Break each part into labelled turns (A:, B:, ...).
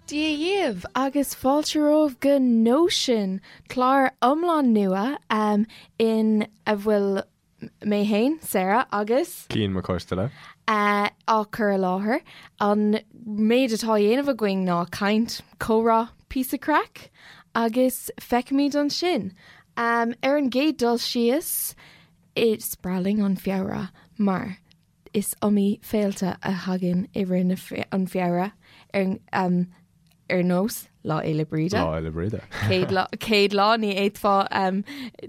A: Dia dhaoibh agus fáilte romhaibh go Nóisean, clár iomlán nua in a bhfuil mé fhéin, Sarah, agus.
B: Cian Mac Coisteala.
A: á cur i láthair. An méid atá á dhéanamh againn ná caint, comhrá, píosa craic agus feicfimid ansin. Ar an gcéad dul síos, is breá linn an Feabhra mar is iomaí féilte a thagann i rith an Feabhra ar ar nós Lá Fhéile Bríde.
B: Lá Fhéile Bríde.
A: Céad lá, céad lá ní fhéadfá um,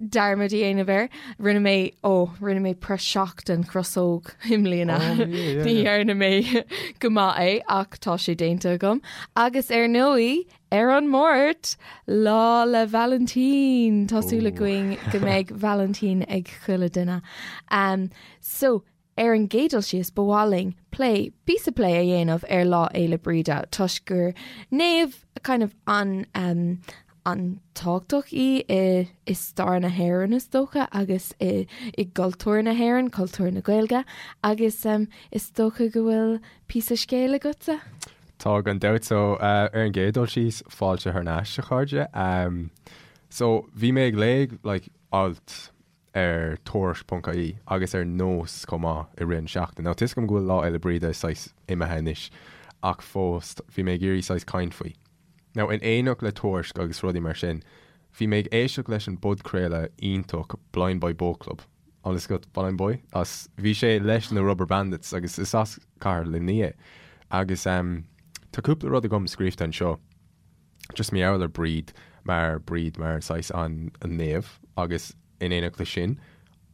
A: dearmad a dhéanamh air. Rinne mé ó, rinne mé praiseach den chrosóg i mbliana.
B: Oh, yeah, yeah,
A: Ní
B: yeah.
A: dhearna mé go maith é ach tá sé déanta agam. Agus ar ndóigh, ar an Máirt, Lá 'le Vailintín. Tá súil
B: Ooh.
A: againn go mbeidh Vailintín ag chuile duine. Um, so, Ar an gcéad dul síos, ba mhaith linn plé, píosa plé a dhéanamh ar Lá Fhéile Bríde toisc gur naomh kind of an um, an-tábhachtach í i, i stair na hÉireann is dócha agus i, i gcultúr na hÉireann, cultúr na Gaeilge agus um, is dócha go bhfuil píosa scéil agatsa?
B: Tá gan dabht so uh, ar an gcéad dul síos fáilte thar n-ais a chairde. Um, so bhí mé ag léamh like, alt ar Tuairisc.ie agus ar Nós chomh maith i rith an seachtain. Now tá 'fhios agam go bhfuil Lá Fhéile Bríde saghas imithe anois ach fós bhí mé ag iarraidh saghas caint faoi. Now in éineacht le Tuairisc agus rudaí mar sin bhí mé ag éisteacht leis an bpodchraoladh iontach Blindboy Boatclub. An bhfuil 'fhios agat Blindboy? As bhí sé leis na Rubberbandits agus is as cathair Luimnigh é. Agus ehm tá cúpla rud agam scríofa anseo. Just mar gheall ar Bríd mar Bríd mar saghas an naomh agus in éineacht leis sin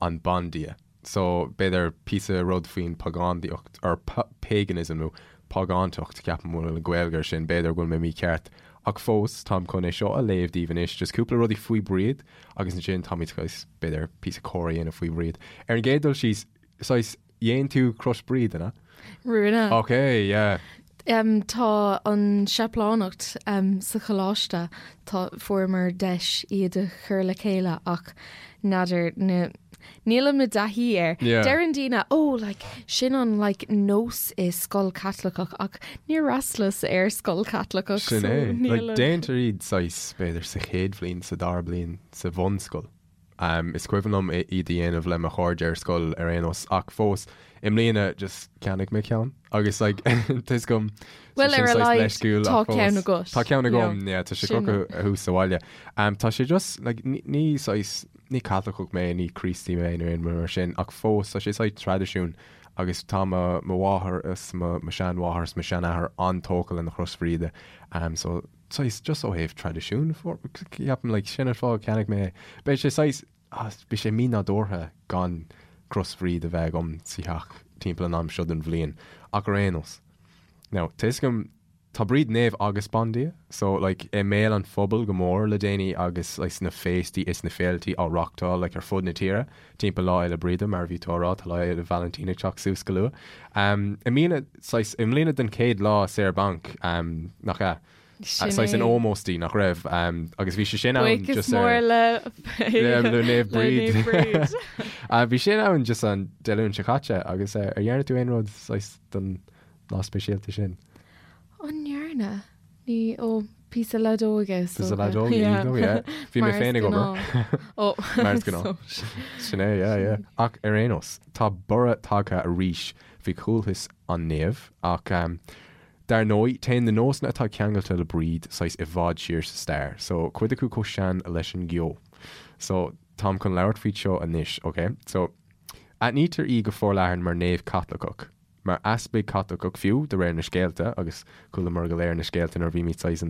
B: an bandia. So b'fhéidir píosa rud faoin pagándaíocht or paganism nó págántacht ceapaim bhfuil an Ghaeilge ar sin, b'fhéidir go bhfuil mé mícheart ach fós táim chun é seo a léamh daoibh anois just cúpla rudaí faoi Bríd agus ansin táimid saghas b'fhéidir píosa comhrá a dhéanamh faoi Bhríd. Ar an gcéad dul síos saghas Dhein tú Crois Bríde, an ea?
A: Rinne.
B: Ok, yeah.
A: Um, tá an séiplíneacht um, sa choláiste, tá fuaireamar deis iad a chur le chéile ach n'fheadar na nílim i dtaithí air.
B: Yeah.
A: Deireann daoine, oh, like, sin an like, nós i scoil Caitliceach ach níor fhreastalaíos ar scoil Caitliceach.
B: Sin
A: so
B: é.
A: níl
B: Like,
A: an-
B: déantar iad saghas, b'fhéidir, sa chéad bhliain, sa dara bliain, sa bhunscoil. Is cuimhin liom iad a dhéanamh le mo chairde ar scoil ar aon nós ach fós i mbliana just cheannaigh mé ceann agus like tá 'fhios agam
A: Bhuel ar a laghad tá ceann agat.
B: Tá ceann agam yeah tá sé crochta thuas sa bhaile. Tá sé just like ní saghas ní Caitliceach mé ní Críostaí mé nó aon rud mar sin ach fós tá sé saghas traidisiún agus tá mo mo mháthair is mo mo sheanmháthair is mo sheanathair an-tógtha lena Chros Bhríde so saghas just ó thaobh traidisiún ceapaim like sin an fáth a cheannaigh mé é. Beidh sé saghas ah beidh sé mínádúrtha gan Cros Bhríde a bheith agam sa theach timpeall an am seo den bhliain ach ar aon nós. Now tá 'fhios agam tá Bríd naomh agus bandia so like i mbéal an phobail go mór le déanaí agus like sna féastaí is na féiltí á reachtáil like ar fud na tíre timpeall Lá Fhéile Bríde mar a bhí tú á rá tá Lá Fhéile Vailintín ag teacht suas go luath. Um, i mbliana Saghas, i mbliana den chéad lá saor banc, nach ea?
A: Sin
B: Saghas in
A: é.
B: ómós di, nach raibh? Agus bhí sé sin ann
A: Buíochas
B: just ar...
A: mór le
B: Le Naomh Bríd.
A: Le Naomh Bríd.
B: Bhí sin ann just an Dé Luain seo caite agus ar dhearna tú aon rud saghas don lá speisialta sin?
A: An ndearna? Ní, ó, píosa leadóige is
B: Píosa
A: dócha.
B: leadóige,
A: Yeah.
B: iontach, yeah. Bhí mé
A: Mar is
B: féin ag obair.
A: gnáth. Ó,
B: Mar is gnáth.
A: so-
B: Sin é, yeah, yeah. Ach ar aon nós, tá borradh tagtha arís faoi chultas an naoimh, ach dar ndóigh, téann na nósanna atá ceangailte le Bríd saghas i bhfad siar sa stair, so cuid acu chomh sean leis an gceo. So, táim chun labhairt faoi seo anois, ok? So, aithnítear í go forleathan mar naomh Caitliceach. mar easpag Caitliceach fiú, de réir na scéalta, agus chualamar go léir na scéalta nuair a bhímid saghas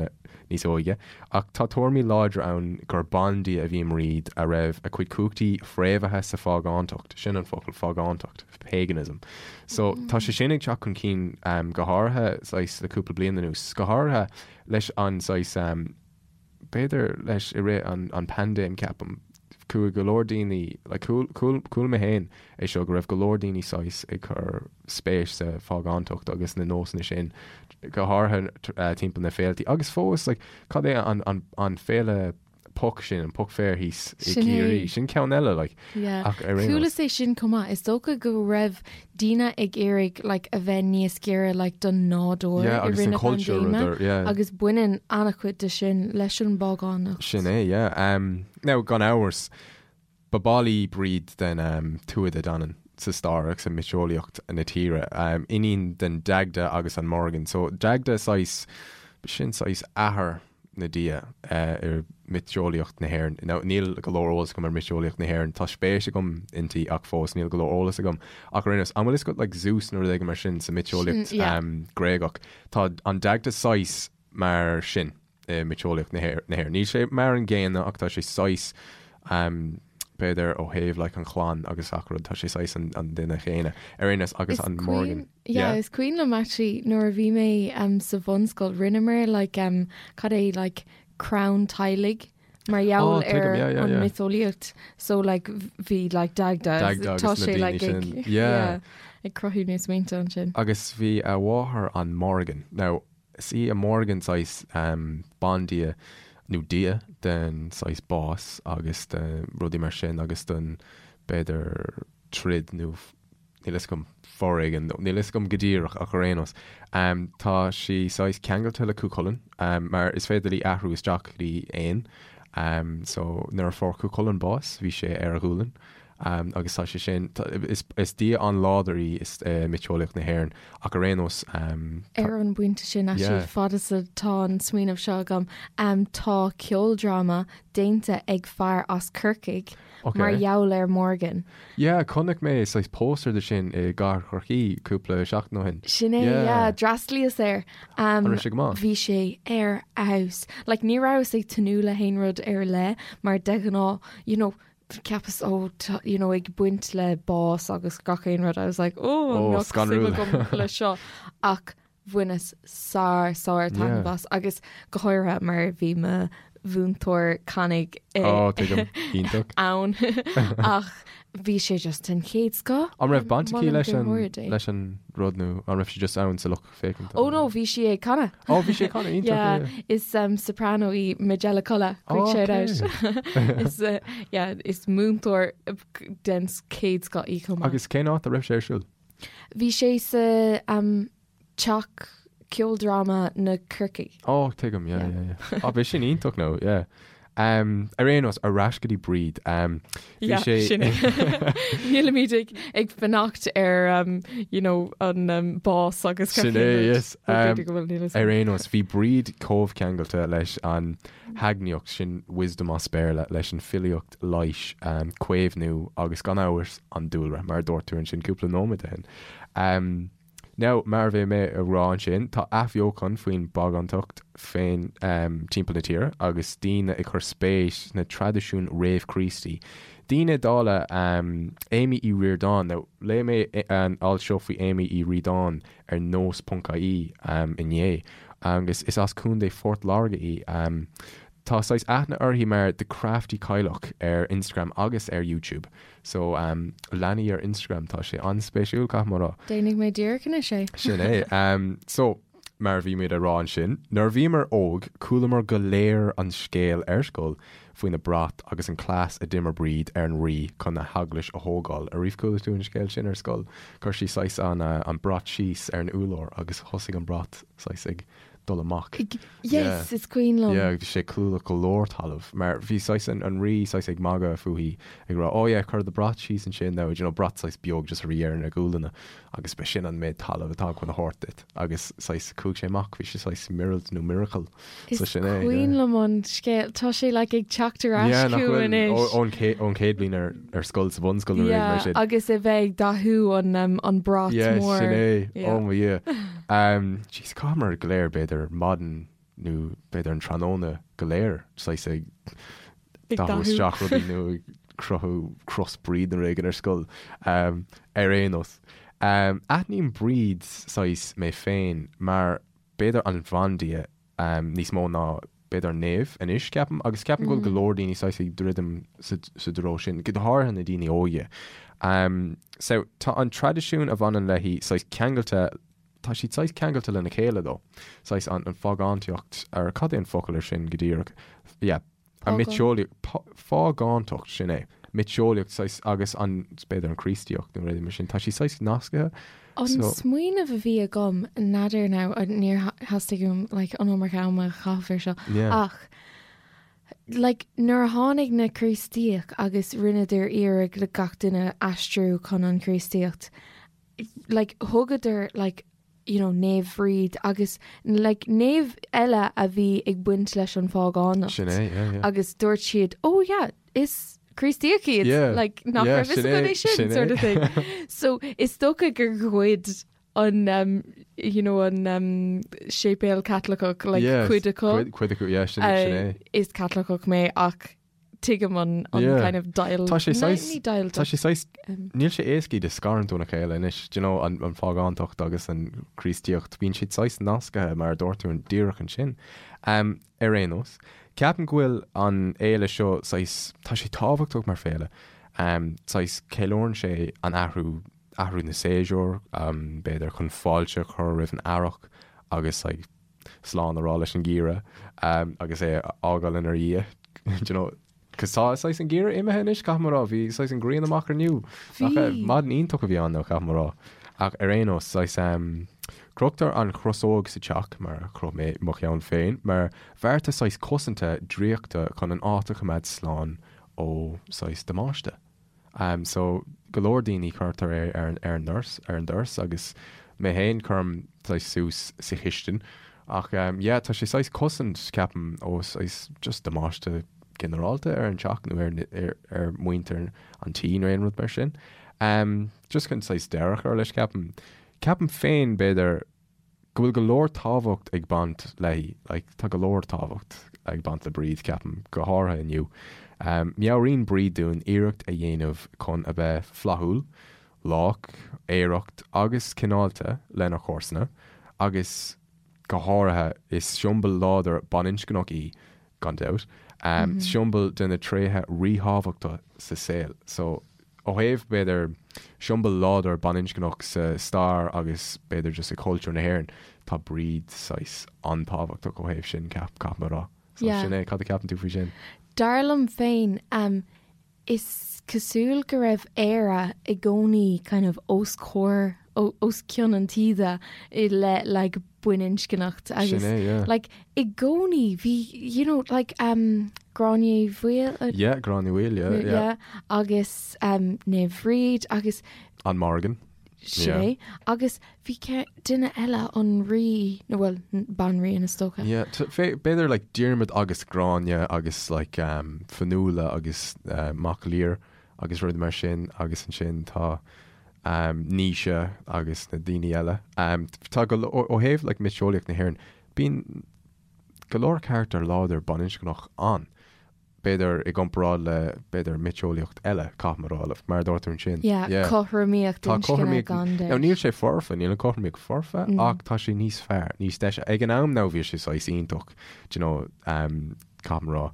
B: níos óige, ach tá tuairimí láidre ann gur bandia a bhí i mBríd a raibh a cuid cumhachtaí fréamhaithe sa phágántacht, sin an focal, phágántacht, paganism. So, tá sé sin ag teacht chun cinn go háirithe saghas le cúpla bliain anuas, go háirithe leis an saghas, b'fhéidir leis i rith an an paindéim ceapaim, chuaigh go leor daoine, like chuala mé féin é seo go raibh go leor daoine saghas ag cur spéis sa phágántacht agus na nósanna sin, go háirithe timpeall na féiltí agus fós like cad é an an an féile? Poc sin, an poc féir thíos i Sin é. gCiarraí, sin ceann eile, like.
A: Yeah. Ach ar aon nós. Chualas é sin chomh maith. Is dócha go raibh daoine ag iarraidh like a bheith níos giorra like don nádúr
B: Yeah, i agus rith an na culture
A: paindéime rud ar, yeah. agus baineann an-chuid de sin leis an bpágánacht.
B: Sin é, yeah. Um, now, gan amhras, ba ball í Bríd den um, Tuatha Dé Danann sa stair agus i miotaseolaíocht na tíre. Um, iníon den Dagda agus an Morrigan. So, Dagda saghas, sin saghas athair na dia i miotaseolaíocht na hÉireann. Now, níl go leor eolas agam ar miotaseolaíocht na hÉireann. Tá spéis agam inti ach fós níl go leor eolas agam. Ach ar aon nós, an bhfuil fhios agat like Zeus nó rud éigin mar sin sa miotaseolaíocht Gréagach? Tá an Dagda saghas mar sin i miotaseolaíocht na hÉireann. Níl sé mar an gcéanna ach tá sé saghas b'fhéidir ó thaobh like an chlann agus gach rud, tá sé saghas an duine chéanna ar aon nós agus an Morrigan.
A: Yeah, is cuimhin liom actually nuair a bhí mé um, sa bhunscoil rinneamar like um, cad é like crann teaghlaigh mar gheall oh, ar yeah, yeah, an yeah. miotaseolaíocht so like bhí like Dagda
B: Dagda tá sé like ag,
A: yeah. ag cruthú na smaointe ansin.
B: Agus bhí a mháthair an Morrigan. Now, is í an Morrigan saghas um, bandia nó dia den saghas bás agus de rudaí mar sin agus den b'fhéidir troid nó níl fhios agam, foréigean, nó níl fhios agam go díreach ach ar aon nós, tá sí saghas ceangailte le Cú Chulainn, mar is féidir léi athrú isteach go dtí éan. So nuair a fuair Cú Chulainn bás, bhí sé ar a ghualainn, agus tá sé sin, is dia an-láidir í i miotaseolaíocht na hÉireann, ach ar aon nós,
A: tá. Ar an bpointe sin, actually, fad is atá an smaoineamh seo agam, tá ceoldráma déanta ag fear as Corcaigh,
B: Ok.
A: Mar gheall ar Morgan.
B: Yeah, chonaic mé saghas póstaer de sin i gcathair Chorcaí cúpla seachtain ó shin.
A: Sin é, Yeah. yeah, d'fhreastlaíos air.
B: Um, An raibh sé go maith?
A: Bhí sé ar fheabhas. Like, ní rabhas ag tnúth le haon rud ar leith, mar de ghnáth, you know, cheapas, oh, tá, you know, ag baint le bás agus gach aon rud. I was like, oh,
B: Oh, an mbeadh suim scanrúil.
A: agam le seo. Ach bhaineas sár sár taitneamh as agus go háirithe mar bhí mo mhúinteoir canadh
B: Ó, tuigim. Iontach.
A: ann ach bhí sé just den chéad scoth.
B: An raibh baint aici Molaim leis go an mór é. leis an rud nó an raibh sí just ann sa lucht féachana?
A: Ó no, bhí sí ag canadh.
B: Ó, bhí sí ag canadh, iontach,
A: Yeah,
B: yeah.
A: is um, soprano í Majella Culla, quick
B: Ó,
A: shout
B: okay.
A: out. Is, uh, yeah, is múinteoir uh, den chéad scoth í chomh maith.
B: Agus cén áit a raibh sé ar siúl?
A: Bhí sé sa um, teach ceoldráma na Corcaigh.
B: Ó, tuigim, yeah, yeah, yeah. Á, bhí sin iontach nó, yeah. Um, ar aon nós, ar ais go dtí Bríd. Um, bhí
A: Yeah,
B: sé...
A: sin é. Nílimid ag, ag fanacht ar um, you know, an um, bás agus
B: Sin é, yes.
A: Um,
B: Um,
A: go bhfuil níl
B: ar aon nós, bhí Bríd chomh ceangailte leis an heagnaíocht, sin wisdom as Béarla, leis an filíocht leighis, um, caomhnú agus gan amhras an dúlra, mar a dúirt tú ansin cúpla nóiméad ó shin. Um, Now, mar a bhí mé a rá ansin, tá athbheochan faoin bpágántacht féin timpeall na tíre agus daoine ag cur spéis sna traidisiúin réamh-Chríostaí. Daoine dála Amy Uí Ríordáin, now, léigh mé an alt seo faoi Amy Uí Ríordáin ar nós.ie inné agus is as Contae Phort Láirge í. Tá saghas aithne uirthi mar The Crafty Cailleach ar Instagram agus ar YouTube. So, um, lean í ar Instagram, tá sé an-spéisiúil, caithfidh mé a rá.
A: Déanfaidh mé díreach anois é.
B: Sin é. Um, so, mar a bhí muid a rá ansin, nuair a bhíomar óg, chualamar go léir an scéal ar scoil faoina brat agus an cleas a d'imir Bríd ar an Rí chun a heaglais a thógáil. Ariamh chuala tú an scéal sin ar scoil? Chuir sí saghas an, uh, an brat síos ar an úlár agus thosaigh an brat saghas ag dul amach.
A: Yes, is cuimhin liom.
B: Yeah, bhí sé clúdach go leor talamh mar bhí saghas an, an rí saghas ag magadh fúithi ag rá oh yeah cuir do brat síos ansin now, you know, brat saghas beag just a bhí ar na gualanna agus ba sin an méid talamh atá chun a thabhairt duit agus saghas chuaigh sé amach, bhí sé saghas míorúilt nó miracle.
A: Is
B: So sin é, yeah.
A: cuimhin liom an scéal, tá sé like ag teacht ar ais
B: Yeah, nach
A: chugam
B: bhfuil,
A: anois.
B: ó, ón cé, ón chéad bhliain ar, ar scoil sa bhunscoil nó rud
A: Yeah,
B: mar sin.
A: agus a bheith ag dathú an, um, an brat
B: Yeah,
A: mór.
B: sin é.
A: Yeah.
B: Oh mo Dhia. Um, jeez, chaitheamar go léir b'fhéidir maidin nó b'fhéidir an tráthnóna go léir saghas ag
A: Ag
B: dathú
A: dathú.
B: isteach rudaí nó ag cruthú cros Bríd nó rud éigin ar scoil. Um, ar aon nós. Um, aithním Bríd saghas mé féin mar b'fhéidir an bhandia um, níos mó ná b'fhéidir an naomh anois, ceapaim, agus ceapaim go bhfuil go leor daoine saghas ag druidim sa, sa dtreo sin, go háirithe na daoine óige. Um, so, tá an traidisiún a bhaineann léi saghas ceangailte, tá siad saghas ceangailte lena chéile though. Saghas an, an phágántaíocht, ar cad é an focal ar sin go díreach? Yeah. An mhiotaseolaíocht, phágántacht, sin é. Miotaseolaíocht saghas agus an, b'fhéidir an Chríostaíocht nó rudaí mar sin, tá sí saghas nasctha.
A: An smaoineamh a bhí agam, n'fheadar now, níor theastaigh uaim like an iomarca ama a chaitheamh ar seo, ach like nuair a tháinig na Críostaíoch agus rinneadar iarraidh le gach duine aistriú chun an Chríostaíocht, like thugadar like you know Naomh Bhríd agus like naomh eile a bhí ag baint leis an phágánacht.
B: Sin é, yeah, yeah.
A: Agus dúirt siad, oh yeah, is Críostaíoch iad,
B: Yeah,
A: like nach
B: yeah,
A: raibh fhios
B: sin
A: againn
B: é,
A: é sin,
B: sin é.
A: sort of thing. So is dócha gur ghoid an um, you know, an um, séipéal Caitliceach like
B: Yeah,
A: cuid acu.
B: Cuid, cuid acu, yeah, sin, sin é.
A: Uh, is Caitliceach mé ach tuigim an an
B: Yeah.
A: kind of deighilt.
B: Tá sé
A: Ní-
B: saghas-
A: ní deighilt
B: Tá sé saghas,
A: um,
B: níl sé éasca iad a scarúint óna chéile anois, do you know, an, an phágántacht agus an Chríostaíocht, bíonn siad saghas nasctha mar a dúirt tú an díreach ansin. Um, ar aon nós, ceapaim go bhfuil an fhéile seo saghas, tá sé tábhachtach mar féile, um, saghas ceiliúrann sé an athrú, athrú na séasúr, um, b'fhéidir chun fáilte a chur roimh an earrach agus like, slán a rá leis an gheimhreadh agus é a fhágáil inár ndiaidh, do you know, 'cause tá saghas an geimhreadh imithe anois, caithfidh mé a rá, bhí saghas an ghrian amach inniu.
A: Bhí.
B: Nach maidin iontach a bhí ann though, caithfidh mé a rá. Ach ar aon nós, saghas em, crochtar an chrosóg sa teach, mar a chroch mé mo cheann féin, mar bhearta saghas cosanta draíochta chun an áit a choimeád slán ó saghas damáiste. So go leor daoine cuirtear é ar ar an ndoras, ar an doras agus mé féin cuirim saghas suas sa chistin ach yeah tá sé saghas cosaint ceapaim ó saghas just damáiste ginearálta ar an teach nó ar ar ar muintir an tí nó aon rud mar sin. Just chun saghas deireadh a chur leis ceapaim. Ceapaim féin b'fhéidir go bhfuil go leor tábhacht ag baint léi, like tá go leor tábhacht ag baint le Bríd, ceapaim, go háirithe inniu. Meabhraíonn Bríd dúinn iarracht a dhéanamh chun a bheith flaithiúil, lách, aerach agus cineálta lenár chomharsana agus go háirithe is siombail láidir baininscneach í gan dabht, siombail de na tréithe ríthábhachtacha sa saol. So, ó thaobh, b'fhéidir, siombail láidir baininscneach sa stair agus b'fhéidir just i cultúr na hÉireann, tá Bríd saghas an-tábhachtach ó thaobh sin, ceap, caithfidh mé a rá. So,
A: Yeah.
B: sin é, cad a ceapann tú faoi sin?
A: Dar liom féin, Is cosúil go raibh Éire i gcónaí kind of os comhair, os cionn an taoide i leith like baininscneacht agus
B: Sin é, yeah.
A: like i gcónaí bhí you know like um Gráinne Uí Bhaoill
B: uh, Yeah, Gráinne Mhaol, yeah, yeah.
A: yeah, agus um Naomh Bhríd agus
B: An Morrigan.
A: Sin é. Agus bhí duine eile, an rí, nó bhuel, banríon is dócha.
B: Yeah, b'fhéidir like Diarmuid agus Gráinne agus like um, Fionnuala agus uh, Mac Lir agus rudaí mar sin agus ansin tá um, Naoise agus na daoine eile. Um, tá go ó ó thaobh like miotaseolaíocht na hÉireann, bíonn go leor carachtar láidir baininscneach ann. b'fhéidir i gcomparáid le, b'fhéidir, miotaseolaíocht eile, caithfidh mé a rá, mar a dúirt tú ansin.
A: Yeah,
B: Yeah.
A: cothromaíocht
B: Tá
A: inscne
B: cothromaíocht,
A: gan
B: now
A: dabht.
B: níl sé foirfe, níl an cothromaíocht foirfe, ach tá sé níos fearr, níos deise. Ag an am now bhí sé saghas iontach, do you know, um, caithfidh mé a rá,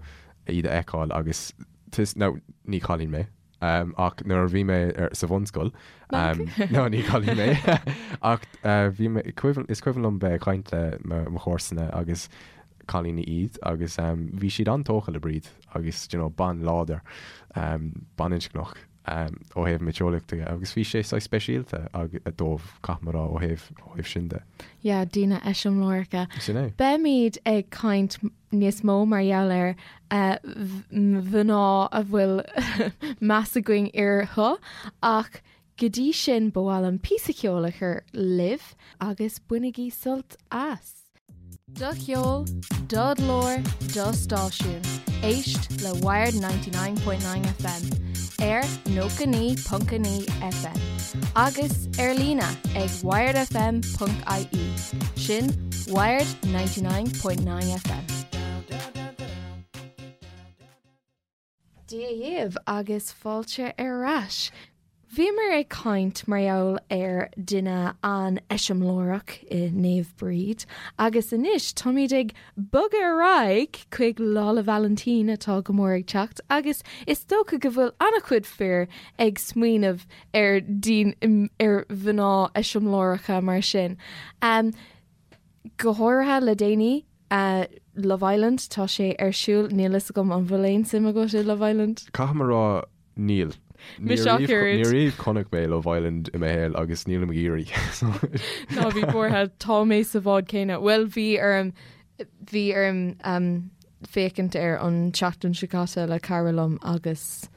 B: iad a fheiceáil agus, tis, now ní cailín mé, um, ach nuair a bhí mé ar, sa bhunscoil, um, no, ní cailín mé, ach uh, bhí mé, cuimhin, is cuimhin liom bheith ag caint le mo, mo chomharsana agus cailíní iad agus um, bhí siad an-tógtha le Bríd agus you know, bean láidir, um, baininscneach um, ó thaobh miotaseolaíochta de agus bhí sé saghas speisialta ag, dóibh, caithfidh mé a rá, ó thaobh, ó thaobh sin de.
A: Yeah, daoine eiseamláireacha.
B: Sin é.
A: Beimid ag caint níos mó mar gheall ar mhná a bhfuil meas againn orthu ach go dtí sin ba mhaith liom píosa ceoil a chur libh agus bainigí sult as. Do cheol, do ghlór, do stáisiún. Éist le Wired 99.9 FM ar 99.9 FM agus ar líne ag wiredfm.ie. Sin Wired 99.9 FM. Dia dhaoibh agus fáilte ar ais. Bhíomar ag caint mar gheall ar duine an-eiseamláireach i Naomh Bríd agus anois táimid ag bogadh ar aghaidh chuig Lá 'le Vailintín atá go mór ag teacht agus is dócha go bhfuil an-chuid fir ag smaoineamh ar daoine ar mhná eiseamláireacha mar sin. Go háirithe le déanaí. Love Island, tá sé ar siúl, níl fhios agam an bhfuil aon suim agat i Love Island?
B: Caithfidh mé a rá, níl.
A: Mise ach oiread.
B: Ní riamh chonaic mé Love Island i mo shaol agus nílim ag iarraidh.
A: Ná bí buartha, tá mé sa bhád céanna. Bhuel, bhí orm, bhí orm féachaint air an tseachtain seo caite le cara liom agus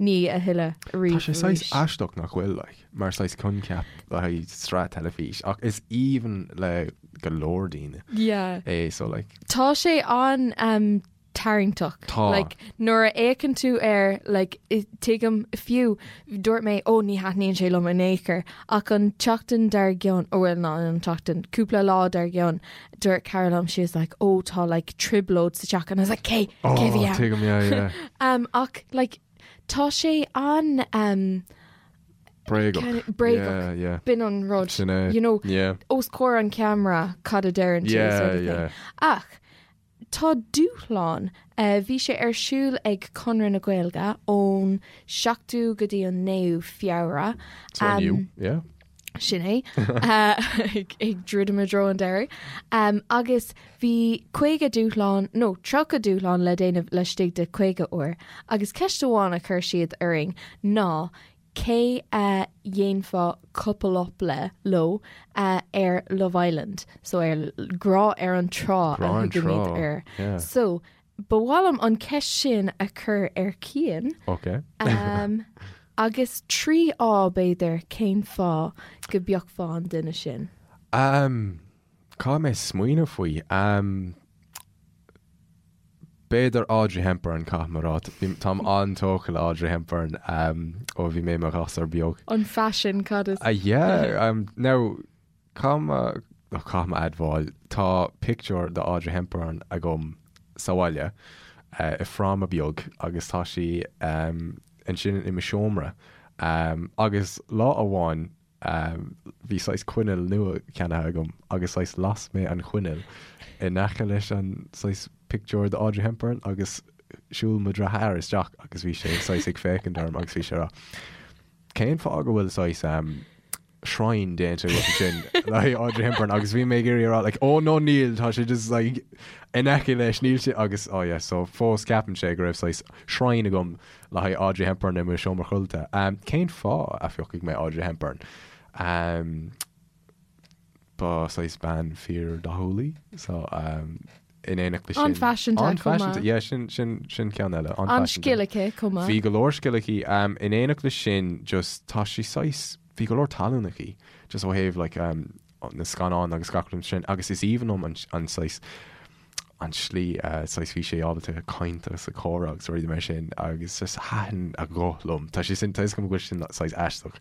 A: ní a thuilleadh
B: Tá sé saghas aisteach nach bhfuil, like, mar saghas coincheap le haghaidh sraith teilifís ach is aoibhinn le go leor daoine
A: Yeah.
B: é so like.
A: Tá sé an um, tarraingteach.
B: Tá.
A: Like, nuair a fhéachann tú air like, tuigim fiú dúirt mé ó ní thaitníonn sé liom in aon chor ach an tseachtain dár gcionn ó bhuel ná an tseachtain cúpla lá dár gcionn dúirt cara liom she was like oh tá like trioblóid sa teach and I was like cé
B: oh,
A: cé bhí ann?
B: Tuigim, yeah, yeah.
A: um, ach like tá sé an um,
B: Bréagach.
A: Kind of bréagach.
B: Yeah, yeah.
A: B'in an rud.
B: Sin é.
A: You know,
B: Yeah.
A: os comhair an ceamara cad a deireann tú
B: Yeah,
A: sort of thing.
B: yeah.
A: Ach tá dúshlán uh, bhí sé ar siúl ag Conradh na Gaeilge ón 7ú go dtí an 9ú Feabhra.
B: So
A: Um,
B: inniu, yeah.
A: Sin é ag druidim i dtreo an deiridh. Um, agus bhí 50 dúshlán nó 30 dúshlán le déanamh laistigh de 50 uair, agus ceist amháin a chuir siad orainn ná cé a dhéanfá couple up le, leo ar Love Island, so ar Grá ar an Trá a
B: Grá ar an
A: thugaimid
B: Trá,
A: air.
B: yeah.
A: So, ba mhaith liom an ceist sin a chur ar Cian.
B: Ok.
A: Um, agus 3 fháth b'fhéidir cén fáth go bpiocfá an duine sin.
B: Um, caithfidh mé smaoineamh faoi. Um, b'fhéidir Audrey Hepburn, caithfidh mé a rá. Bhí- Táim an-tógtha le Audrey Hepburn um, ó bhí mé i mo ghasúr beag.
A: An faisean, cad is?
B: Uh, yeah, um, now, Caithfidh mé, caithfidh mé admháil, tá pictiúr de Audrey Hepburn agam sa bhaile i fráma beag agus tá sí ansin i mo seomra. Agus lá amháin bhí saghas coinneal nua ceannaithe agam agus saghas las mé an choinneal in aice leis an saghas pictiúr de Audrey Hepburn agus shiúil mo dheartháir isteach agus bhí sé saghas ag féachaint orm agus bhí sé ag rá Cén fáth go bhfuil saghas shrine déanta agat ansin le haghaidh Audrey Hepburn agus bhí mé ag iarraidh a rá like oh no níl tá sé just like in aice leis níl sé agus oh yeah so fós ceapann sé go raibh saghas shrine agam le haghaidh Audrey Hepburn i mo seomra codlata. Um, cén fáth a phiocfaidh mé Audrey Hepburn? Um, Ba saghas bean fíor-dhathúil í so in éineacht leis sin.
A: An-fhaiseanta chomh maith.
B: An-fhaiseanta, yeah, sin, sin, sin ceann eile.
A: An-scil aici chomh maith.
B: Bhí go leor scil aici. In éineacht leis sin just tá sí saghas, bhí go leor talún aici just ó thaobh like na scannáin agus gach rud sin agus is aoibhinn liom an, an saghas, an tslí saghas bhí sí ábalta caint agus a comhrá agus rudaí mar sin agus just thaitin a guth liom. Tá sé sin, tá fhios agam go bhfuil sin saghas aisteach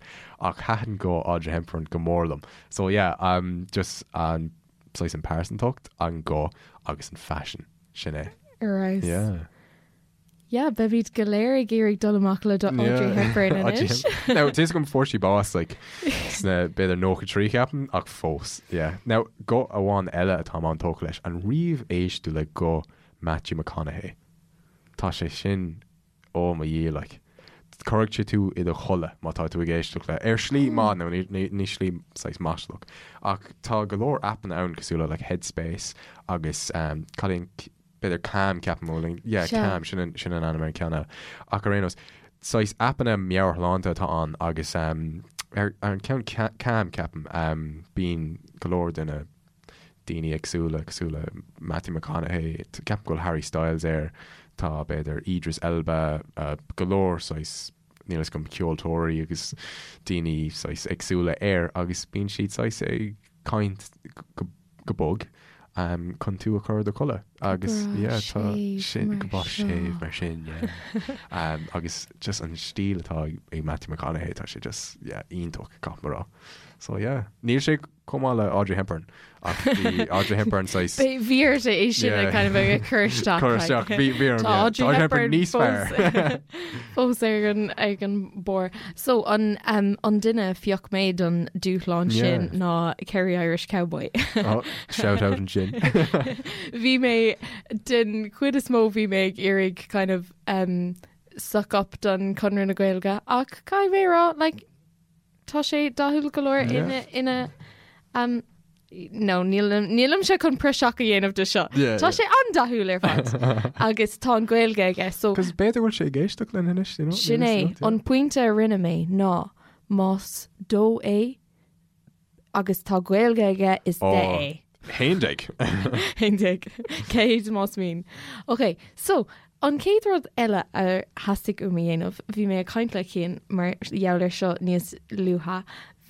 B: ach thaitin guth Audrey Hepburn go mór liom. So yeah, um, just an saghas an pearsantacht, an guth agus an faisean, sin é.
A: Ar fheabhas.
B: Yeah.
A: Yeah, beimid go léir ag iarraidh dul amach le Audrey Hepburn anois.
B: Now, tá fhios agam fuair sí bás like, sna b'fhéidir 93 ceapaim, ach fós, yeah. Now, guth amháin eile atáim an-tógtha leis, an riamh éist tú le guth Matthew McConaughey? Tá sé sin, oh mo Dhia, like, cuirfidh sé tú i do chodladh má tá tú ag éisteacht le, ar shlí maith, nó ní, ní, ní slí saghas maslach, ach tá go leor aipeanna ann cosúil le like Headspace agus um, cad é an b'fhéidir Calm, ceapaim, bhuel, yeah,
A: Sea.
B: Calm, sin an, sin an ainm ar an ceann eile. Ach ar aon nós, saghas aipeanna meabhairshláinte atá ann agus um, ar, ar an ceann Ca- Calm, ceapaim, um, bíonn go leor de na daoine éagsúla, cosúil le Matthew McConaughey, t- ceapaim go bhfuil Harry Styles air, tá b'fhéidir Idris Elba, uh, go leor saghas, níl fhios agam, ceoltóirí agus daoine saghas éagsúla air agus bíonn siad saghas ag caint go go bog chun tú a chur i do chodladh agus yeah tá sin go breá séimh mar sin yeah agus just an stíl atá ag Matthew McConaughey tá sé just yeah iontach caithfidh mé a rá so yeah níl sé chomh maith le Audrey Hepburn ach bhí Audrey Hepburn saghas
A: Bhí ort é sin a kind of a chur isteach
B: cur isteach bhí bhí orm
A: Tá
B: yeah
A: Audrey
B: Audrey Hepburn
A: Hepburn
B: níos fearr
A: fós ar an ag an barr. So an um, an duine a phioc mé don dúshlán sin
B: Yeah.
A: ná Kerry Irish Cowboy.
B: Oh, shout out ansin.
A: Bhí mé den chuid is mó bhí mé ag iarraidh kind of um, suck up don Conradh na Gaeilge ach caithfidh mé a rá like, tá sé dathúil go leor
B: Yeah.
A: ina ina um, No, nílimse chun praiseach a dhéanamh de seo. Tá sé an-dathúil ar fad agus tá an Ghaeilge aige
B: so. Cos b'fhéidir go bhfuil sé ag éisteacht linn anois, you know?
A: Sin é, an pointe a rinne mé ná más dó é agus tá Gaeilge aige is de é.
B: 11.
A: 11. 100 más mian. Ok, so an chéad rud eile a theastaigh uaim a dhéanamh, bhí mé ag caint le Cian mar gheall air seo níos luaithe,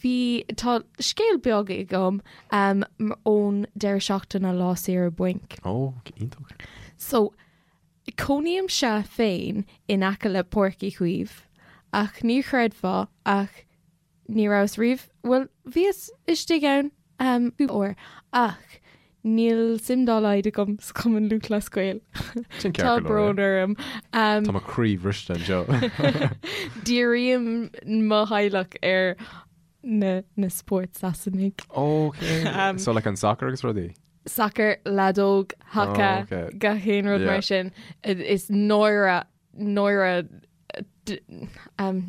A: Bhí, tá scéal beag agam ón deireadh seachtaine lá saoire bainc.
B: Ó, iontach.
A: So, cónaímse féin in aice le Páirc Uí Chaoimh, ach ní chreidfeá ach ní rabhas riamh, bhuel, bhíos istigh ann cúpla uair ach Níl suim dá laghad agam sa Chumann Lúthchleas Gael.
B: Sin ceart
A: Tá
B: go leor,
A: brón orm.
B: Tá mo chroí bhriste anseo.
A: Dírím mo theaghlach ar na na spóirt Sasanaigh.
B: Ok. So like an soccer agus rudaí?
A: Sacar, leadóg, haca,
B: Oh, ok.
A: gach aon rud
B: Yeah.
A: mar sin. Is náire náire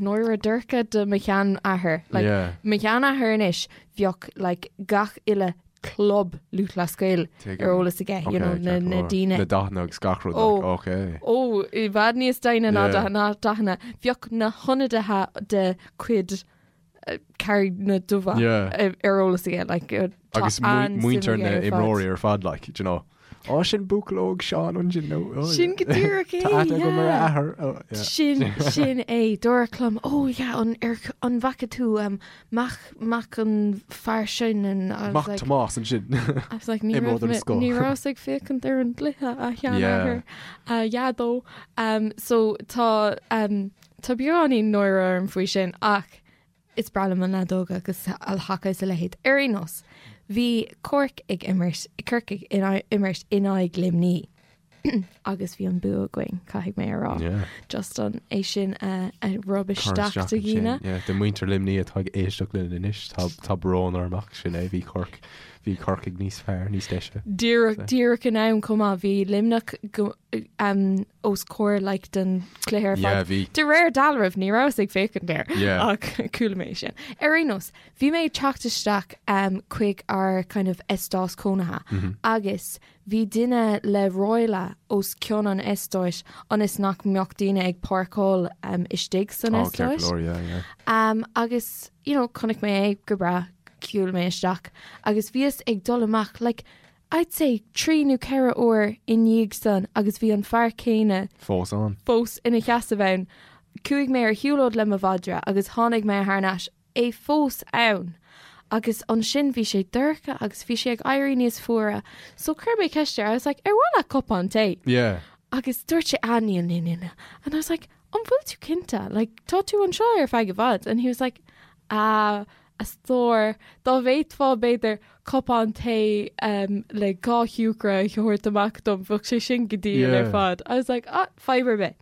A: náire dorcha do mo sheanathair. Like,
B: Yeah.
A: Mo sheanathair anois bheadh like, gach uile club Lúthchleas Gael
B: Tuigim.
A: ar eolas aige, you know,
B: Okay,
A: na,
B: ceart go
A: na
B: leor.
A: daoine.
B: Na dathanna agus gach rud.
A: Ó.
B: Like, okay.
A: Ó, i bhfad níos doimhne ná
B: Yeah.
A: ná dathanna. Bheadh na hionadaithe de chuid Carraig na Dubha
B: Yeah.
A: ar eolas aige, like, tá
B: Agus
A: an-suim
B: muintir
A: aige
B: na
A: ar fad.
B: imreoirí ar fad, like, do you know. Ó, sin buachaill óg Seán ansin nó. Oh,
A: Sin go díreach é,
B: Tá aithne agam ar a
A: yeah.
B: athair. Oh, yeah.
A: Sin sin é dúradh liom ó yeah an ar an bhfaca tú um, mac mac an fear sin and I was
B: Mac
A: like
B: Tomás ansin.
A: I was like ní
B: Imreoir
A: raibh
B: den
A: mé-
B: scoth.
A: ní rabhas ag féachaint ar an gcluiche a sheanathair a dhaideo. Um, so tá um, Tá beagáinín náire orm faoi sin ach is breá liom an leadóg agus an haca is a leithéid. Ar aon nós, bhí Cork ag imirt, Corcaigh ag imirt in aghaidh Luimní agus bhí an bua againn, caithfidh mé a rá.
B: Yeah.
A: Just an é sin a, a rub
B: Cur
A: isteach do
B: ansin.
A: dhaoine.
B: Yeah, do muintir Luimní atá ag éisteacht linn anois, tá, tá brón orm ach sin é, bhí Cork, bhí Corcaigh níos fearr, níos deise.
A: Díreach, díreach in am chomh maith, bhí Luimneach go, um, os comhair like, den chluiche ar fad.
B: Yeah, bhí.
A: De réir dealraimh ní rabhas ag féachaint air
B: Yeah.
A: ach chuala mé sin. Ar aon nós, bhí mé ag teacht isteach um, chuig ár kind of eastát cónaithe mm -hmm. agus bhí duine le ráille os cionn an eastáit ionas nach mbeadh daoine ag páirceáil um, istigh san
B: Oh, ceart
A: eastát.
B: go leor, yeah, yeah.
A: Um, agus you know, chonaic mé é go breá, shiúil mé isteach agus bhíos ag dul amach like, I'd say 3 nó 4 uair i ndiaidh san agus bhí an fear céanna
B: Fós ann.
A: fós ina sheasamh ann. Chuaigh mé ar shiúlóid le mo mhadra agus tháinig mé thar n-ais, é fós ann! Agus ansin bhí sé dorcha agus bhí sé ag éirí níos fuaire so chuir mé ceist air, I was like, ar mhaith leat cupán tae?
B: Yeah.
A: Agus dúirt sé, ah níl, níl, níl, níl. And I was like, an bhfuil tú cinnte? Like, tá tú anseo ar feadh i bhfad. And he was like, ah, a stór, dá bhféadfá b'fhéidir cupán tae um, le 2 shiúcra a thabhairt amach dom, bheadh sé sin go diail ar
B: Yeah.
A: fad. I was like, ah, fadhb ar bith.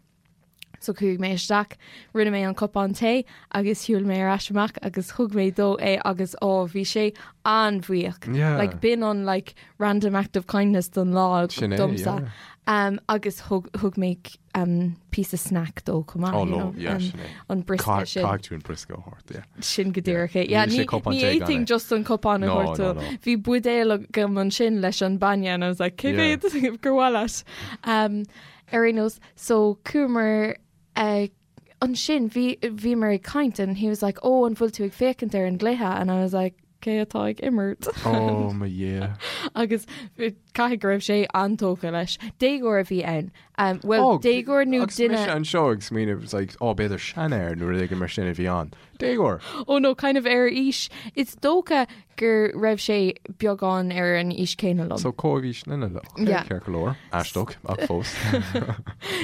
A: So chuaigh mé isteach, rinne mé an cupán tae agus shiúil mé ar ais amach agus thug mé dó é agus ó, bhí sé an-bhuíoch.
B: Yeah.
A: Like, b'in an like, random act of kindness don lá
B: Sin é,
A: domsa.
B: yeah.
A: Um, agus thug, thug mé um, píosa snack dó chomh maith,
B: Oh,
A: you
B: no,
A: know,
B: yeah,
A: um,
B: sin é.
A: an briosca sin.
B: Caithfidh tú an briosca a thabhairt, yeah.
A: Sin go díreach é. Yeah,
B: Níl sé
A: ní
B: cupán
A: ní
B: tae gan
A: fhéadfainn
B: é.
A: just an cupán a
B: No,
A: thabhairt
B: no,
A: dó.
B: no.
A: Bhí buidéal agam ansin leis an bainne and I was like, cé
B: Yeah.
A: mhéad gur mhaith leat? Um, ar aon nós, so chuamar uh, ansin bhí bhíomar ag caint and he was like, oh, an bhfuil tú ag féachaint ar an gcluiche? And I was like, cé atá ag imirt?
B: Oh mo Dhia.
A: Agus caithfidh go raibh sé an-tógtha leis. Déagóir a bhí ann. Um, well,
B: Oh,
A: déagóir nó
B: agus mise
A: duine...
B: anseo ag smaoineamh, it's like, oh, b'fhéidir seanfhear nó rud éigin mar sin a bhí ann. Déagóir!
A: Oh no, kind of ar aois. Is dócha go raibh sé beagán ar an aois céanna liom.
B: So comhaois linne le. Okay,
A: Yeah.
B: ceart go leor. Aisteach, ach fós.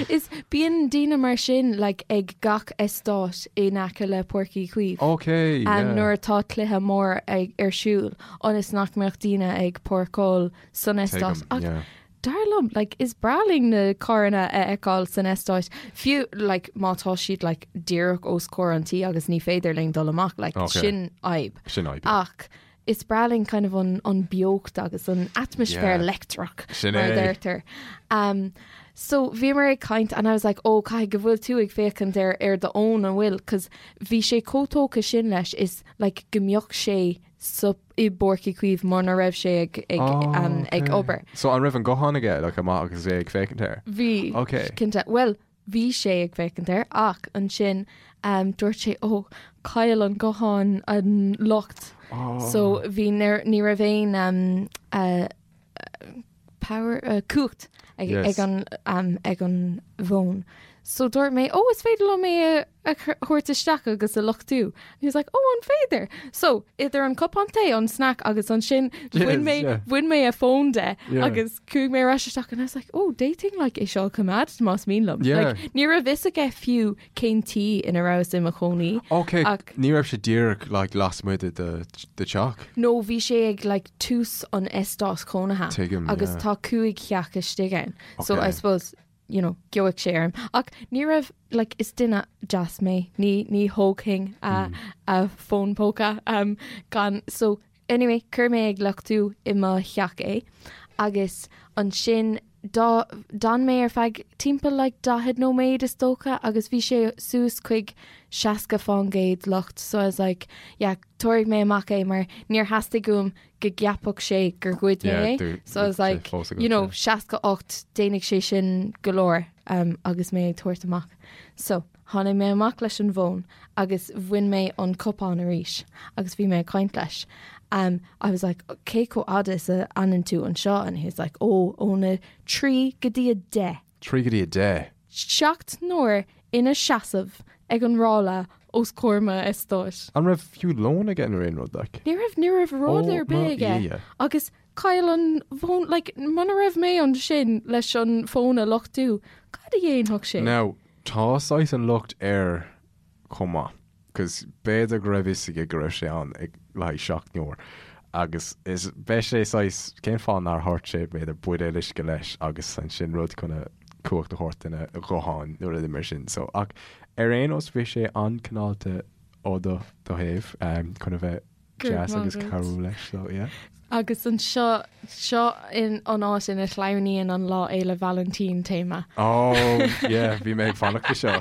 A: Is bíonn daoine mar sin like, ag gach eastát in aice le Páirc Uí Chaoimh.
B: Okay,
A: Um,
B: yeah.
A: nuair atá cluiche mór ag, ar siúl, ionas nach mbeadh daoine ag páirceáil san eastát.
B: Tuigim,
A: Ach
B: yeah.
A: dar liom, like, is breá linn na carranna a fheiceáil san eastát, fiú like, má tá siad like, díreach os comhair an tí agus ní féidir linn dul amach, like,
B: Okay.
A: sin fhadhb.
B: Sin fhadhb, yeah.
A: Ach is breá linn kind of an, an beocht agus an atmaisféar
B: Yeah.
A: leictreach
B: Sin
A: mar a
B: é.
A: deirtear. Um, so bhíomar ag caint and I was like, oh, caithfidh go bhfuil tú ag féachaint ar, ar do fhón an bhfuil, cos bhí sé chomh tógtha sin leis is like, go mbeadh sé sa i bPáirc Uí Chaoimh muna raibh sé ag ag
B: Oh,
A: um, ag
B: okay.
A: obair.
B: So an raibh an guthán aige like, amach agus é ag féachaint air?
A: Bhí
B: Okay.
A: cinnte. Well, bhí sé ag féachaint air ach ansin um, dúirt sé ó chaill an guthán an lucht.
B: Oh.
A: So bhí ní raibh aon um, uh, power uh, cumhacht ag,
B: Yes.
A: ag an um, ag an bhfón. So dúirt mé, ó is féidir liom é a, a chur- thabhairt isteach agus a luchtú. And he was like, ó an féidir. So idir an cupán tae an snack agus ansin bhain mé
B: yeah.
A: bhain mé a fón de
B: Yeah.
A: agus chuaigh mé ar ais isteach and I was like, oh d'fhéadfainn like é seo a choimeád más mian liom.
B: Yeah.
A: Like, ní raibh fhios aige fiú cén tí ina rabhas i mo chónaí.
B: Ok,
A: Ach-
B: ní raibh sé díreach like, lasmuigh de do do theach.
A: No bhí sé ag like, tús an eastát cónaithe
B: Tuigim,
A: agus
B: yeah.
A: tá 5 theach istigh ann. So
B: Okay.
A: I suppose you know, gheobhadh sé orm. Ach ní raibh like, is duine deas mé, ní ní thógfainn a, a fón póca um, gan so anyway, chuir mé ag luchtú i mo theach é agus ansin dá d'fhan mé ar feadh timpeall like 40 nóiméad is dócha agus bhí sé suas chuig 60% lucht so I was like yeah tabharfaidh mé amach é mar níor theastaigh uaim go gceapfadh sé gur ghoid mé
B: Yeah,
A: é.
B: do-
A: So I was
B: sé
A: like
B: fós agat,
A: you know
B: yeah.
A: 68 déanfaidh sé sin go leor um, agus mé ag tabhairt amach. So tháinig mé amach leis an bhfón agus bhain mé an cupán arís agus bhí mé ag caint leis. Um, I was like, cé chomh fada is a fhanann tú anseo and he was like, ó óna 3 go dtí a 10.
B: 3 go dtí a 10.
A: 7 n-uair ina seasamh ag an ráille os comhair m'eastáit.
B: An raibh fiú lón aige nó aon rud like?
A: Ní raibh ní raibh rud
B: Ó,
A: ar bith
B: mo
A: aige
B: Dhia.
A: agus chaill an fón like, muna raibh mé ansin leis an fón a luchtú, cad a dhéanfadh sé?
B: Now, tá saghas an locht air chomh maith, cos b'fhéidir go raibh fhios aige go raibh sé ann ag le haghaidh 7 n-uair agus is beidh sé saghas cén fáth nár thabhairt sé b'fhéidir buidéal uisce leis agus ansin rud chun a cumhacht a thabhairt dona ghuthán nó rud mar sin so ach ar aon nós bhí sé an-cineálta ó do do thaobh um, chun a bheith
A: Go raibh
B: deas agus
A: maith agat.
B: cabhrú leis so yeah.
A: Agus anseo seo in an áit ina shleamhnaíonn an Lá Fhéile Vailintín téama.
B: Oh yeah bhí mé ag fanacht le seo.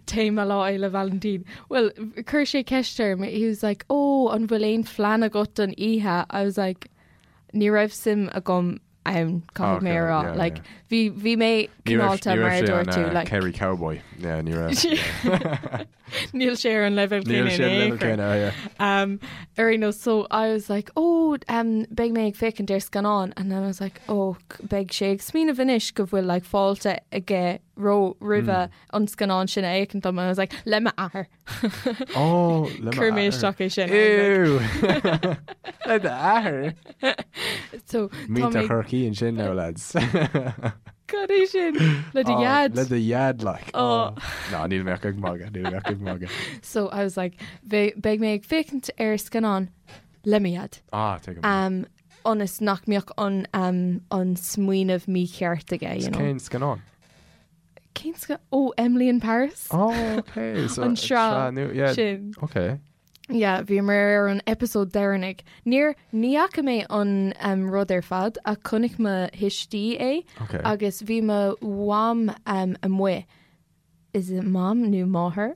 A: Téama Lá Fhéile Vailintín. Well, chuir sé ceist orm, he was like, oh, an bhfuil aon phlean agat don oíche? I was like, ní raibh suim agam ann, caithfidh mé a
B: Okay,
A: rá.
B: yeah,
A: Like,
B: yeah.
A: bhí bhí mé
B: Ní raibh
A: cineálta
B: ní
A: mar
B: raibh
A: a
B: sé
A: dúirt
B: an
A: tú,
B: uh,
A: like,
B: Kerry Cowboy. Yeah, ní raibh.
A: Níl sé ar an leibhéal
B: Níl
A: céanna
B: sé
A: in
B: an
A: aon
B: leibhéal
A: chor.
B: céanna, yeah.
A: Um, ar aon nós, so I was like, oh, um, beidh mé ag féachaint ar scannán, and then I was like, oh, beidh sé ag smaoineamh anois go bhfuil like fáilte aige ró roimhe an scannán sin a fhéachaint dom, and I was like, le m'athair.
B: Oh, le
A: Chuir mé
B: m'athair.
A: isteach é sin.
B: Ew! Le d'athair?
A: So tá
B: Muintir
A: mé
B: Chorcaí ansin now, lads.
A: Cad é sin? Le do
B: Oh,
A: dhaid.
B: Le do dhaid, like.
A: Oh.
B: Oh. No, níl mé ach ag magadh, níl mé ach ag magadh.
A: So I was like, beidh mé ag féachaint ar scannán le mo dhaid.
B: Ah, tuigim.
A: Um, ionas nach mbeadh an, um, an smaoineamh mícheart aige, you know.
B: Cén scannán?
A: Cén sca oh, Emily in Paris?
B: Oh, okay. So,
A: An sraith
B: nua, yeah.
A: sin.
B: Okay.
A: Yeah, bhíomar ar an episode deireanach. Níor ní fhaca mé an um, rud ar fad ach chonaic mo thuistí é
B: Okay.
A: agus bhí mo mham um, amuigh. Is it mom nó máthair?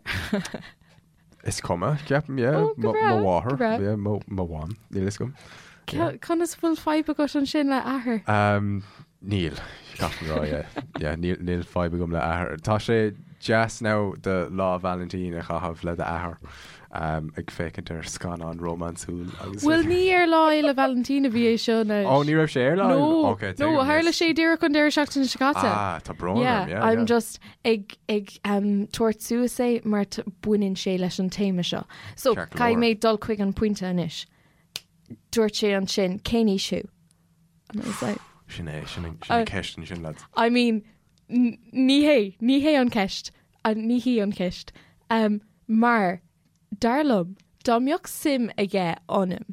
B: Is cuma, ceapaim, yeah.
A: Oh, go
B: Mo
A: breá,
B: mo
A: go
B: mháthair,
A: breá.
B: yeah, mo mo mham, níl fhios agam.
A: Conas bhfuil fadhb agat ansin le athair?
B: Um, níl, caithfidh mé rá, yeah. Yeah, níl níl fadhb agam le athair. Tá sé deas now do Lá Vailintín a chaitheamh le d'athair um, ag féachaint ar scannán rómánsúil agus
A: Bhuel ní ar Lá Fhéile Vailintín a bhí é seo anois.
B: Oh, ní raibh sé ar Lá?
A: No,
B: Okay,
A: no,
B: tuigim,
A: tharla
B: yes.
A: sé díreach an deireadh seachtaine seo caite.
B: Ah, tá brón
A: Yeah,
B: orm, yeah,
A: I'm
B: yeah.
A: just ag ag um, tabhairt suas é mar baineann sé leis an téama seo. So
B: Ceart go
A: caithfidh
B: leor.
A: mé dul chuig an pointe anois. Dúirt sé ansin cén aois thú? And I was like,
B: Sin é, sin an sin an ceist ansin, lads.
A: I mean, ní hé, ní hé an ceist, ní hí an ceist. Um, mar, dar liom, dá mbeadh suim aige ionam,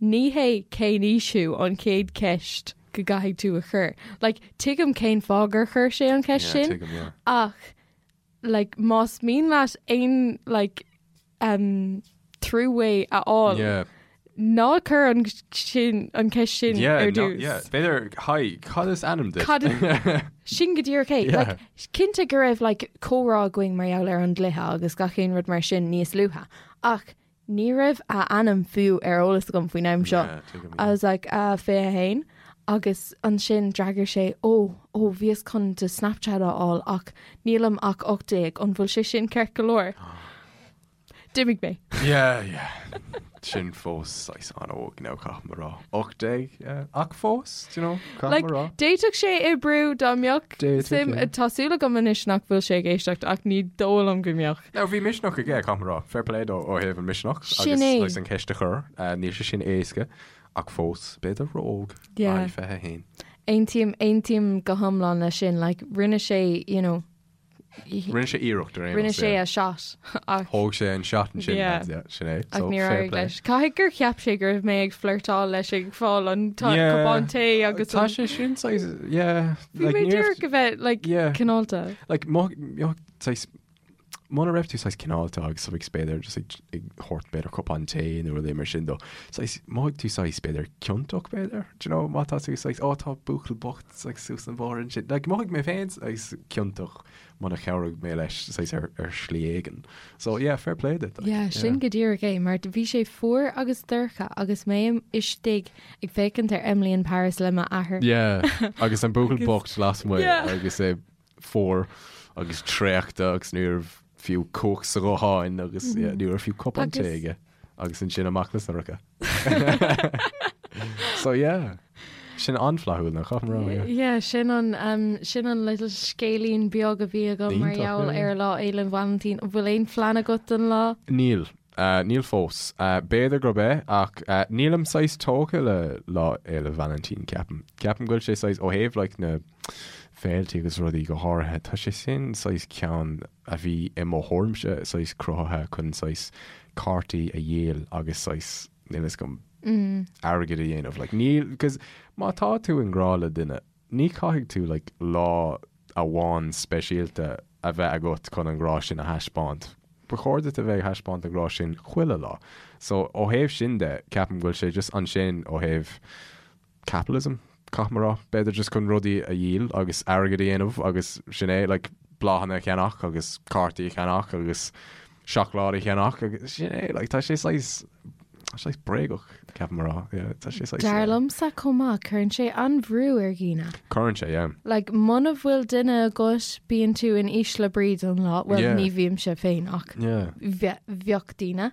A: ní hé cén aois thú an chéad ceist go gcaithfidh tú a chur. Like, tuigim cén fáth gur chuir sé an ceist
B: Yeah,
A: sin,
B: tuigim, yeah.
A: ach, like, más mian leat aon, like, um, throughway a fháil,
B: Yeah.
A: ná cuir an sin, an ceist sin
B: Yeah,
A: ar
B: no,
A: dtús.
B: yeah. B'fhéidir, hi, cad is ainm duit?
A: Cad Sin go díreach é.
B: Yeah.
A: Like, cinnte go raibh like, comhrá againn mar gheall ar an gcluiche agus gach aon rud mar sin níos luaithe. Ach Ní raibh a ainm fiú ar eolas agam faoin am seo.
B: Yeah, tuigim,
A: I was like, uh, 21 agus ansin d'fhreagair sé, ó, ó, bhíos chun do Snapchat a fháil ach nílim ach 18, an bhfuil sé sin ceart go leor? D'imigh mé.
B: Yeah, yeah. Sin fós saghas an-óg now, caithfidh mé a rá. 18, yeah. Ach fós, do you know, caithfidh
A: Like,
B: mé a rá.
A: d'fhéadfadh sé oibriú dá mbeadh
B: D'fhéadfadh,
A: suim,
B: yeah.
A: tá súil agam anois nach bhfuil sé ag éisteacht ach ní dóigh liom go mbeadh.
B: Now bhí misneach aige, caithfidh mé a rá. Fair play dó ó thaobh an misneach
A: Sin
B: agus
A: é.
B: saghas an ceist a chur. Níl sé sin éasca ach fós, b'fhéidir ró-óg.
A: Yeah.
B: Aye, 21.
A: Aontaím, aontaím go hiomlán leis sin. Like, rinne sé, you know,
B: Rinne sé iarracht ar aon
A: rinne
B: nós,
A: sé
B: yeah.
A: a shot ach
B: Thóg sé an shot ansin,
A: Yeah.
B: lads, yeah, sin é.
A: ach
B: So,
A: níor
B: fair
A: éirigh
B: play.
A: leis. Caithfidh gur cheap sé go raibh mé ag flirtáil leis ag fáil an
B: Yeah.
A: cupán tae agus
B: Tá
A: an-
B: sé sin saghas, yeah.
A: Bhí
B: like,
A: mé
B: ní raibh-
A: díreach a bheith, like,
B: Yeah.
A: cineálta.
B: Like, mo, mo, saghas, muna raibh tú saghas cineálta agus like, b'fhéidir just ag, ag thabhairt b'fhéidir cupán tae nó rudaí mar sin dó. Saghas, mhothaigh tú saghas b'fhéidir ciontach b'fhéidir? Do you know, má tá tú saghas, ó tá buachaill bocht saghas suas an bóthar ansin. Like, mhothaigh mé féin saghas ciontach muna chabhraigh mé leis saghas ar, ar shlí éigin. So yeah, fair play duit. Like,
A: Yeah, sin go díreach é, mar bhí sé fuar agus dorcha agus mé istigh ag féachaint ar Emily in Paris le m'athair.
B: Yeah, agus an buachaill bocht lasmuigh
A: Yeah.
B: agus é fuar agus traochta agus ní raibh fiú cumhacht sa ghuthán agus yeah, ní raibh fiú cupán tae aige agus ansin amach le Sorcha. So yeah, sin an-fhlaithiúil nach caithfidh mé a rá, yeah.
A: Yeah, sin an um, sin an little scéilín beag a bhí agam mar
B: Iontach,
A: gheall
B: yeah.
A: ar Lá Fhéile Vailintín. An bhfuil aon phlean agat don lá?
B: Níl. Níl fós. B'fhéidir gurb ea, ach nílim saghas tógtha le Lá Fhéile Vailintín, ceapaim. Ceapaim go bhfuil sé saghas, ó thaobh like na féiltí agus rudaí go háirithe, tá sé sin saghas ceann a bhí i mo thuairimse saghas cruthaithe chun saghas cártaí a dhíol agus saghas, níl fhios agam, airgead a dhéanamh. Like níl, because má tá tú i ngrá le duine, ní chaithfidh tú like lá amháin speisialta a bheith agat chun an grá sin a thaispeáint. Ba chóir duit a bheith ag thaispeáint an grá sin chuile lá. So, ó thaobh sin de, ceapaim go bhfuil sé just ansin ó thaobh capitalism, caithfidh mé a rá. B'fhéidir just chun rudaí a dhíol agus airgead a dhéanamh agus sin é, like bláthanna a cheannach agus cártaí a cheannach agus seacláid a cheannach agus sin é, like tá sé saghas, tá sé saghas bréagach, ceapaim a rá. Yeah, tá sé saghas,
A: Dar
B: yeah.
A: liomsa chomh maith, cuireann sé an-bhrú ar dhaoine.
B: Cuireann sé, yeah.
A: Like, muna bhfuil duine agat, bíonn tú in ísle brí don lá, bhuel,
B: Yeah.
A: ní bhímse féin ach
B: Yeah.
A: bhe- bheadh daoine.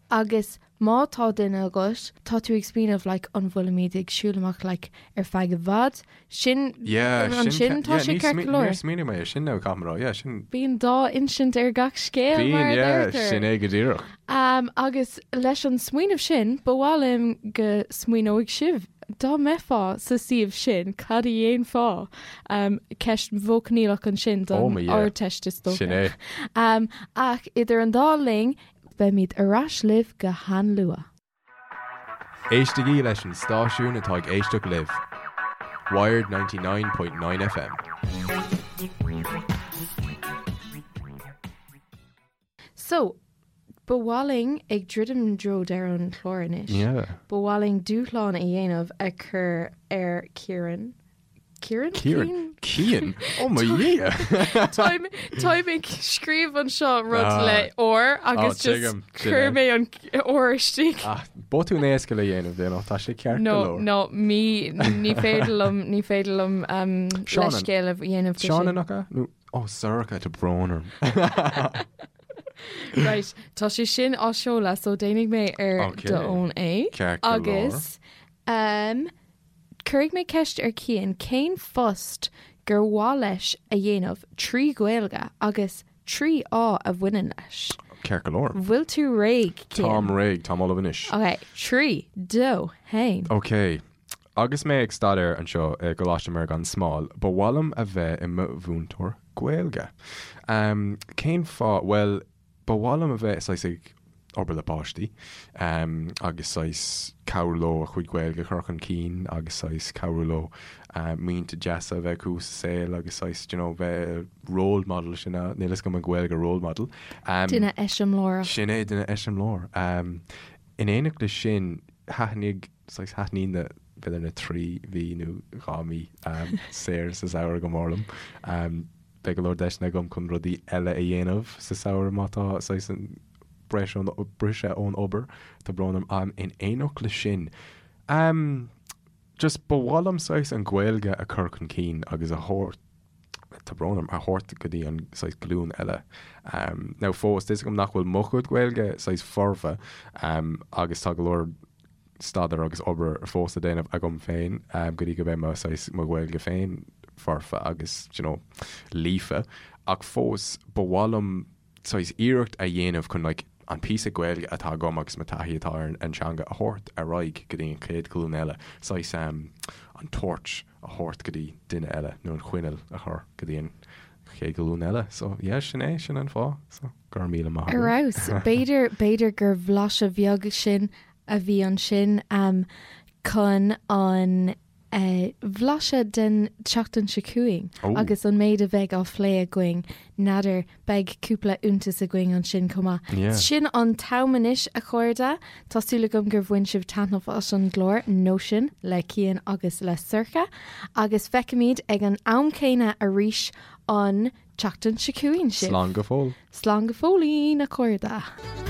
A: Agus má tá duine agat, tá tú ag smaoineamh, like, an bhfuilimid ag siúl amach, like, ar feadh i bhfad? Sin,
B: Yeah, sin
A: ansin tá
B: yeah,
A: sé
B: ní
A: ceart
B: smaoin-
A: go leor.
B: Níor smaoinigh mé ar sin now, caithfidh mé a rá, yeah, sin.
A: Bíonn dá insint ar gach scéal, mar
B: Bíonn,
A: a
B: yeah,
A: deirtear.
B: sin é go díreach.
A: Um, agus leis an smaoineamh sin, ba mhaith liom go smaoineoidh sibh, dá mbeifeá sa suíomh sin, cad a dhéanfá? Um, ceist mhodh-choinníollach ansin
B: Oh
A: don
B: my yeah.
A: Ardteist is dócha.
B: Sin é.
A: Um, ach idir an dá linn, beimid ar ais libh go han-luath.
B: Éistigí leis an stáisiún atá ag éisteacht libh, Wired 99.9 FM.
A: So, ba mhaith linn ag druidim i dtreo deireadh an chláir anois.
B: Yeah.
A: Ba mhaith linn dúshlán a dhéanamh a chur ar Ciaran. Ciaran?
B: Ciaran? Cian? Oh mo Dhia!
A: Táim táim ag scríobh anseo rud
B: Ah.
A: le R agus
B: Oh,
A: just
B: tuigim, sin
A: chuir
B: é.
A: mé an R istigh.
B: Ah, botún éasca le dhéanamh, you know, tá sé ceart go
A: No,
B: leor.
A: no, mí ní féidir liom ní féidir liom um,
B: Seanan.
A: leithscéal a dhéanamh de
B: Seanan
A: sin.
B: nach ea? Nó, oh, Sorcha, tá brón orm.
A: Right, tá sé sin á seoladh, so déanfaidh mé ar
B: Okay.
A: d'fhón é.
B: Ceart go leor.
A: Agus um, cuirfidh mé ceist ar Cian cén phost gur mhaith leis a dhéanamh trí Ghaeilge agus 3 fháth a bhaineann leis.
B: Ceart go leor.
A: Bhfuil tú réidh, Cian?
B: Táim réidh, táim ullamh anois.
A: Ok, 3, 2, 1.
B: Ok. Agus mé ag staidéar anseo i gColáiste Mhuire gan Smál, ba mhaith liom a bheith i mo mhúinteoir Gaeilge. Cén fáth? Bhuel, Ba mhaith liom a bheith saghas ag obair le páistí agus saghas cabhrú leo a chuid Gaeilge a chur chun cinn agus saghas cabhrú leo muinte deasa a bheith acu sa saol agus saghas, do you know, bheith role model sin é, níl fhios agam an Ghaeilge role model.
A: Duine eiseamláireach.
B: Sin é, duine eiseamláir. In éineacht leis sin, thaitnigh, saghas thaitníonn na, b'fhéidir na 3 mhí nó 2 mhí saor sa samhradh go mór liom. Beidh go leor deiseanna agam chun rudaí eile a dhéanamh sa samhradh má tá saghas an Briseadh ón obair, tá brón orm, um, in éineacht le sin, um, just ba mhaith liom saghas an Ghaeilge a chur chun cinn agus a thabhairt, tá brón orm, a thabhairt go dtí an saghas glúin eile. Um, now fós, tá 'fhios agam nach bhfuil mo chuid Gaeilge saghas foirfe, um, agus tá go leor staidéar agus obair fós le déanamh agam féin go dtí go mbeidh mo saghas mo Ghaeilge féin foirfe agus you know líofa ach fós ba mhaith liom saghas iarracht a dhéanamh chun like an píosa Gaeilge atá agam agus mo taithí atá ar an teanga a thabhairt ar aghaidh go dtí an chéad ghlúin eile, saghas an torch a thabhairt go dtí duine eile nó an choinneal a chur go dtí an chéad ghlúin eile. So yeah sin é, sin an fáth. So go raibh míle maith
A: agat. Ar fheabhas. B'fhéidir, b'fhéidir gur bhlaiseadh bheag sin a bhí ansin chun an bhlaiseadh den tseachtain seo chugainn agus an méid a bheidh á phlé againn. N'fheadar, beidh cúpla iontas againn ansin chomh maith. Sin an t-am anois, a chairde. Tá súil agam gur bhain sibh taitneamh as an gclár Nóisean le Cian agus le Sorcha agus feicfimid ag an am céanna arís an tseachtain seo chugainn
B: sibh. Slán go fóill.
A: Slán go fóillín, a chairde.